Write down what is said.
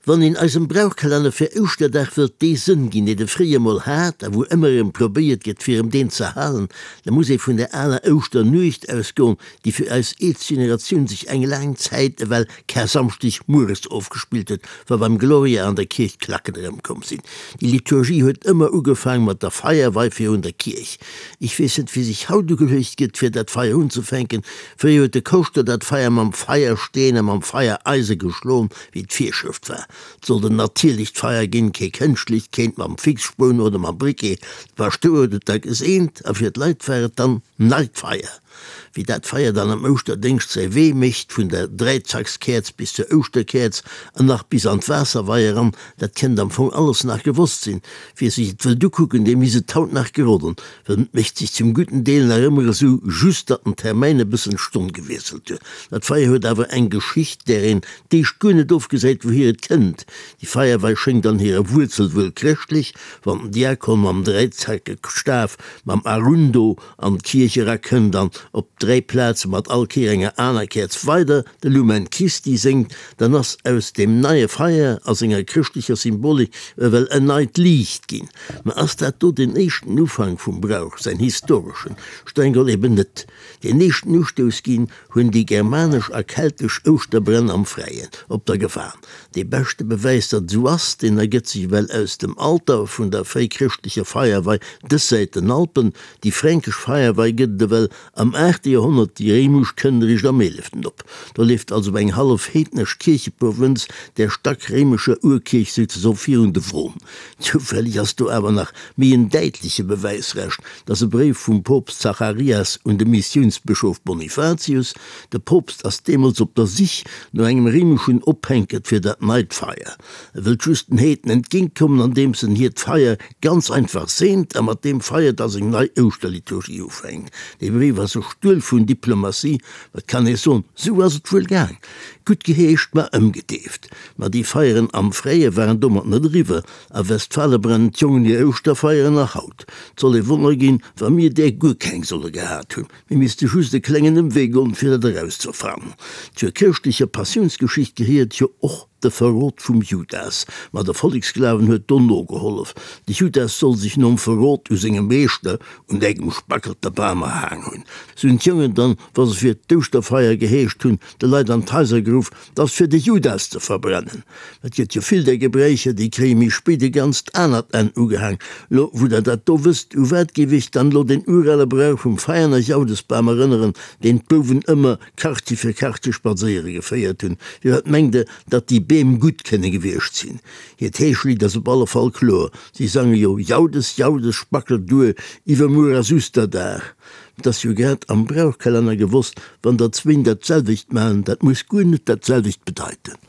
Wann een eisem Brauchkalenner fir Ouschterdag wëllt dee Sënn ginn, deen e fréier mol hat a wou ëmmer erëm probéiert gëtt fir em deen ze halen, da muss ee vun der aler Ouschternuecht ausgoen, déi fir eis eelst Generatioun sech eng laang Zäit ewell Karsamschdeg mueres ofgespillt huet, wa beim Gloria an der Kierch d'Klacken erëmkomm sinn. Déi Liturgie huet ëmmer ugefaang mat der Feierwei virun der Kierch. Ech weess net, wéi sech haut ugeluecht gëtt, fir dat Feier unzefänken. Fréier huet de Koschter dat Feier mam Feiersteen a mam Feiereise geschloen, Wéi d'Virschrëft war, 't sollt en natierlecht Feier ginn, kee kënschtlecht, keent mam Fixspoun oder mam Briquet. De Paschtouer huet et da geseent a fir d'Leit war et dann neit Feier. Wéi dat Feier dann am Ouschterdéngscht säi Wee mécht, vun der Dräizackskäerz bis zur Ouschterkäerz an nach bis an d'Waasserwei eran, dat kennt am Fong alles nach gewosst sinn. Wie sech et wëllt ukucken, dee misst et haut nach geroden, well et mécht sech zum gudden Deel nach ëmmer esou, just datt den Termäin e bëssen d'Stonn gewiesselt huet. Dat Feier huet awer eng Geschicht, där een d'éischt guer net ofgesäit, wouhier et kënnt. Déi Feierwei schéngt an hirer Wuerzel wuel chrëschtlech, wann den Diakon mam dräizackege Staf, mam Arundo, an d'Kierch erakënnt an op 3 Plaze mat all Kéier enger aner Käerz weider de Lumen Christi séngt, dann ass aus deem neie Feier a senger chrëschtlecher Symbolik ewell en neit Liicht ginn. Ma ass dat do den éischten Ufank vum Brauch, säin historeschen? Streng geholl eben net. Deen éischten Ustouss ginn hunn déi germanesch a keltesch Ouschterbränn am Fräien op der Gewan. Dee beschte Bewäis, datt et esou ass, deen ergëtt sech ewell aus dem Alter vun der fréichrëschtlecher Feierwei dëssäit den Alpen. Déi fränkesch Feierwei gëtt et ewell am aachte Joerhonnert, déi réimesch kënnt eréischt am eeleften op. Do leeft also eng hallef heednesch Kiercheprovënz der stackréimescher Urkierch souzesoe virun de Won. Zoufälleg ass do awer nach méi en däitleche Bewäisrescht, 't ass e Bréif vum Poopst Zacharias un de Missiounsbëschof Bonifatius. De Poopst ass deemools op der Sich no engem réimeschen Ophänkert fir dat neit Feier. E wëllt just den Heeden entgéintkommen, andeems en hiert Feier ganz einfach seent a mat deem Feier da seng nei Ouschterliturgie ufänkt. Dee Bréif ass e Stuel vun Diplomatie, ma et kann ee soen, sou ass et wuel gaang. Gutt geheescht, ma ëmgedeeft. Ma déi Feieren am Fräie waren domat net eriwwer. A Westfale brennen d'Jongen hir Ouschterfeieren nach haut. 't soll ee Wonner ginn, wa mir där guer keng solle gehat hunn. Mir misste just e klengen Ëmwee goen, fir dat erauszefannen. Zur chrëschtlecher Passiounsgeschicht gehéiert jo och de Verrot vum Judas. Ma de Volleksglawen huet do nogehollef. De Judas soll sech nom Verrot u sengem Meeschter un engem spackelte Bam erhaang hunn. Sou hunn d'Jongen dann, wa se fir d'Ouschterfeier geheescht hunn, de Leit an d'Haiser geruff, 't ass fir de Judas ze verbrennen. Et gëtt jo vill där Gebräicher, déi kréie méi spéit e ganzt anert Enn ugehaang. Lo wou der dat do wësst, u wat géif iech dann lo deen urale Brauch vum Veianer Jaudesbam erënneren, deen d'Bouwen ëmmer Quartier fir Quartier spadséiere geféiert hunn? Firwat mengt der, datt déi Beem gutt kënne gewiescht sinn? Hiert Heeschlidd ass op alle Fall kloer, si sange jo, Jaudes, Jaudes, spackel duer, iwwermuer ass Usterdag. Et ass jo grad am Brauchkalenner gewosst, wann der zwéin dat selwecht maachen, dat muss guer net dat selwecht bedeiten.